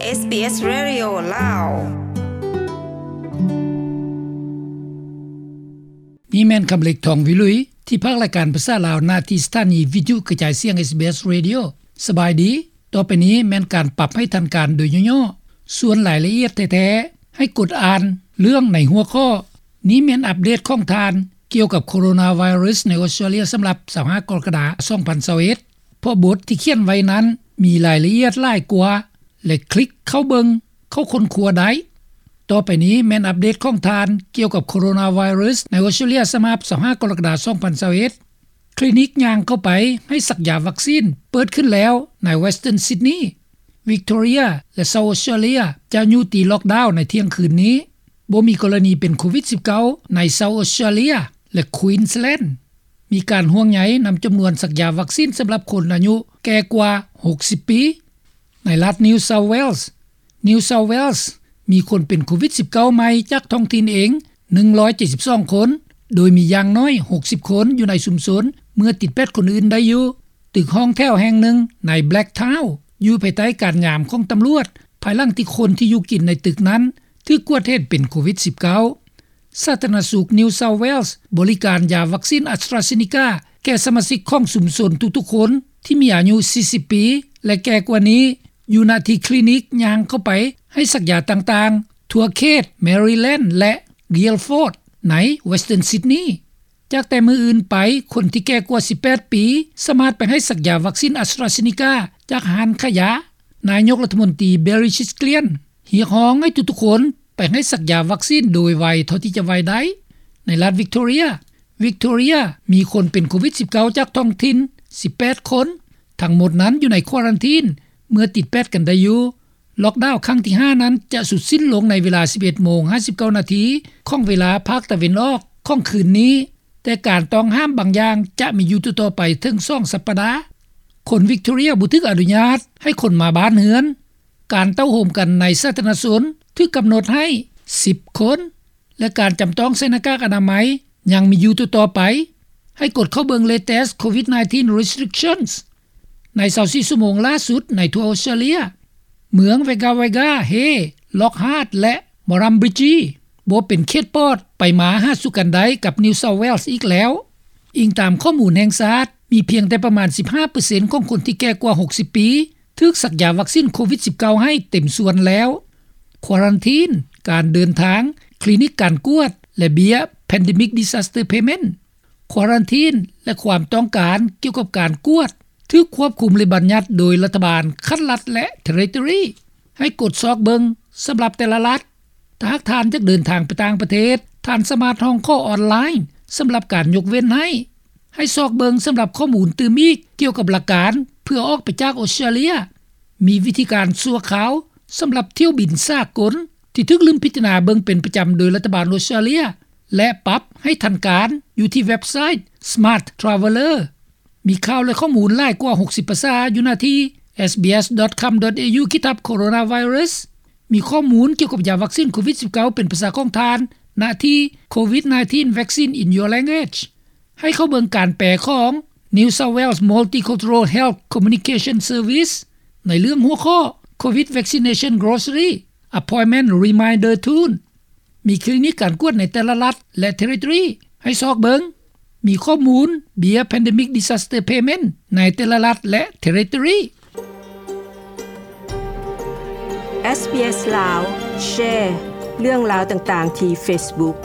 ເອສບີເອສ Radio ລາວ. ນີ້ແມ່ນຄຳເລັກ ທອງວິລຸຍ ທີ່ພາກລາຍການພາສາລາວ ນະທີ່ສະຖານີວິທະຍຸກະຈາຍສຽງ ເອສບີເອສ Radio. ສະບາຍດີ. ຕໍ່ໄປນີ້ແມ່ນການປັບໃຫ້ທັນການໂດຍຫຍໍ້ໆ, ສ່ວນລາຍລະອຽດແທ້ໆ ໃຫ້ກົດອ່ານເລື່ອງໃນຫົວຂໍ້. ນີ້ແມ່ນອັບເດດຂອງທ່ານກ່ຽວກັບໂຄໂຣນາໄວຣັສໃນອົດສະຕຣາເລຍ ສຳລັບຊາວຫ້າກໍລະກະດາ ສອງພັນຊາວເອັດ. ເພາະບົດທີ່ຂຽນໄວ້ນັ້ນມີລາຍລະອຽດຫຼາຍກວ່າ ແລະ ຄລິກເຂົ້າເບິ່ງ, ເຂົ້າຄົ້ນຄວ້າໄດ້. ຕໍ່ໄປນີ້ແມ່ນອັບເດດຂອງທ່ານກ່ຽວກັບໂຄໂຣນາໄວຣັສໃນອົດສະຕຣາເລຍ ສະບັບຊາວຫ້າກໍລະກະດາ ສອງພັນຊາວເອັດ. ຄລີນິກຍ່າງເຂົ້າໄປໃຫ້ສັກຢາວັກຊີນເປີດຂຶ້ນແລ້ວໃນ Western Sydney, Victoria ແລະ South Australia ຈະຍຸຕິລັອກດາວໃນທ່ຽງຄືນນີ້. ບໍ່ມີກໍລະນີເປັນໂຄວິດສິບເກົ້າ ໃນ South Australia ແລະ Queensland. ມີການຫ່ວງໃຍນຳຈຳນວນສັກຢາວັກຊີນສຳລັບຄົນອາຍຸແກ່ກວ່າຫົກສິບປີ. ໃນລັດ New South Wales, New South Wales ມີຄົນເປັນໂຄວິດສິບເກົ້າໃໝ່ຈາກທ້ອງຖິ່ນເອງ ໜຶ່ງຮ້ອຍເຈັດສິບສອງຄົນ, ໂດຍມີຢ່າງໜ້ອຍຫົກສິບຄົນຢູ່ໃນຊຸມຊົນ ເມື່ອຕິດແປດຄົນອື່ນໄດ້ຢູ່. ຕຶກຫ້ອງແຖວແຫ່ງໜຶ່ງໃນ Blacktown ຢູ່ພາຍໃຕ້ການຍາມຂອງຕຳຫຼວດ ພາຍຫຼັງທີ່ຄົນທີ່ຢູ່ກິນໃນຕຶກນັ້ນຖືກກວດເຫັນເປັນໂຄວິດສິບເກົ້າ. ສາທາລະນະສຸກ New South Wales ບໍລິການຢາວັກຊີນ AstraZeneca ແກ່ສະມາຊິກຂອງຊຸມຊົນທຸກໆຄົນທີ່ມີອາຍຸສີ່ສິບປີ ແລະ ແກ່ກວ່ານີ້ ຢູ່ນະທີ່ຄລີນິກຍ່າງເຂົ້າໄປໃຫ້ສັກຢາຕ່າງໆ ທົ່ວເຂດ Maryland ແລະ Guildford ໃນ Western Sydney. ຈາກແຕ່ມື້ອື່ນໄປ, ຄົນທີ່ແກ່ກວ່າສິບແປດປີ ສາມາດໄປໃຫ້ສັກຢາວັກຊີນ AstraZeneca ຈາກຮ້ານຂາຍຢາ. ນາຍົກລັດຖະມົນຕີ Barry Chitkawiecz ຮຽກຮ້ອງໃຫ້ທຸກໆຄົນ ໄປໃຫ້ສັກຢາວັກຊີນໂດຍໄວເທົ່າທີ່ຈະໄວໄດ້. ໃນລັດ Victoria, Victoria ມີຄົນເປັນໂຄວິດສິບເກົ້າຈາກທ້ອງຖິ່ນສິບແປດຄົນ, ທັງໝົດນັ້ນຢູ່ໃນຄວາຣັນທີນເມື່ອຕິດແປດກັນໄດ້ຢູ່. ລັອກດາວຄັ້ງທີຫ້ານັ້ນຈະສຸດສິ້ນລົງໃນເວລາສິບເອັດໂມງຫ້າສິບເກົ້ານາທີຂອງເວລາພາກຕາເວັນອອກຂອງຄືນນີ້, ແຕ່ການຕ້ອງຫ້າມບາງຢ່າງຈະມີຢູ່ຕໍ່ໆໄປເຖິງສອງສັບປະດາ. ຄົນ Victoria ບໍ່ຖືກອະນຸຍາດໃຫ້ຄົນມາບ້ານເຮືອນ. ການເຕົ້າໂຮມກັນໃນສາທາລະນະຊົນຖືກກຳນົດໃຫ້ສິບຄົນ ແລະ ການຈຳຕ້ອງໃສ່ໜ້າກາກອະນາໄມຍັງມີຢູ່ຕໍ່ໆໄປ. ໃຫ້ກົດເຂົ້າເບິ່ງ Latest COVID nineteen Restrictions ໃນຊາວສີ່ຊົ່ວໂມງລ່າສຸດໃນທົ່ວອົດສະຕຣາເລຍ. ເມືອງ Wagga Wagga, Hay, Lockhart ແລະ Murrumbidgee ບໍ່ເປັນເຂດປອດໄປມາຫາສູ່ກັນໄດ້ກັບ New South Wales ອີກແລ້ວ. ອີງຕາມຂໍ້ມູນແຫ່ງຊາດ, ມີພຽງແຕ່ປະມານສິບຫ້າເປີເຊັນຂອງຄົນທີ່ແກ່ກວ່າຫົກສິບປີ ຖືກສັກຢາວັກຊີນໂຄວິດສິບເກົ້າໃຫ້ເຕັມສ່ວນແລ້ວ. ຄວາຣັນທີນ, ການເດີນທາງ, ຄລີນິກການກວດ ແລະ ເບ້ຍ Pandemic Disaster Payment. ຄວາຣັນທີນ ແລະ ຄວາມຕ້ອງການກ່ຽວກັບການກວດ ຖືກຄວບຄຸມ ແລະ ບັນຍັດໂດຍລັດຖະບານຂັ້ນລັດ ແລະ Territory. ໃຫ້ກົດຊອກເບິ່ງສຳລັບແຕ່ລະລັດ. ຖ້າຫາກທ່ານຢາກເດີນທາງໄປຕ່າງປະເທດ, ທ່ານສາມາດຮ້ອງຂໍອອນລາຍສຳລັບການຍົກເວັ້ນໃຫ້. ໃຫ້ຊອກເບິ່ງສຳລັບຂໍ້ມູນຕື່ມອີກກ່ຽວກັບຫຼັກການເພື່ອອອກໄປຈາກອົດສະຕຣາເລຍ. ມີວິທີການຊົ່ວຄາວສຳລັບຖ້ຽວບິນສາກົນທີ່ຖືກລືມພິຈາລະນາເບິ່ງເປັນປະຈຳໂດຍລັດຖະບານອົດສະຕຣາເລຍ ແລະ ປັບໃຫ້ທັນການຢູ່ທີ່ເວັບໄຊ Smart Traveller. ມີຂ່າວ ແລະ ຂໍ້ມູນຫຼາຍກວ່າຫົກສິບພາສາຢູ່ໜ້າທີ່ SBS dot com dot au ຂີດທັບ Coronavirus. ມີຂໍ້ມູນກ່ຽວກັບຢາວັກຊີນໂຄວິດສິບເກົ້າເປັນພາສາຂອງທ່ານ ນະທີ່ COVID nineteen Vaccine in Your Language. ໃຫ້ເຂົ້າເບິ່ງການແປຂອງ New South Wales Multicultural Health Communication Service ໃນເລື່ອງຫົວຂໍ້ COVID Vaccination Grocery Appointment Reminder Tool. ມີຄລີນິກການກວດໃນແຕ່ລະລັດ ແລະ Territory ໃຫ້ຊອກເບິ່ງ. ມີຂໍ້ມູນເບ້ຍ Pandemic Disaster Payment ໃນແຕ່ລະລັດ ແລະ Territory. SBS ລາວ Share ເລື່ອງລາວຕ່າງໆທີ່ Facebook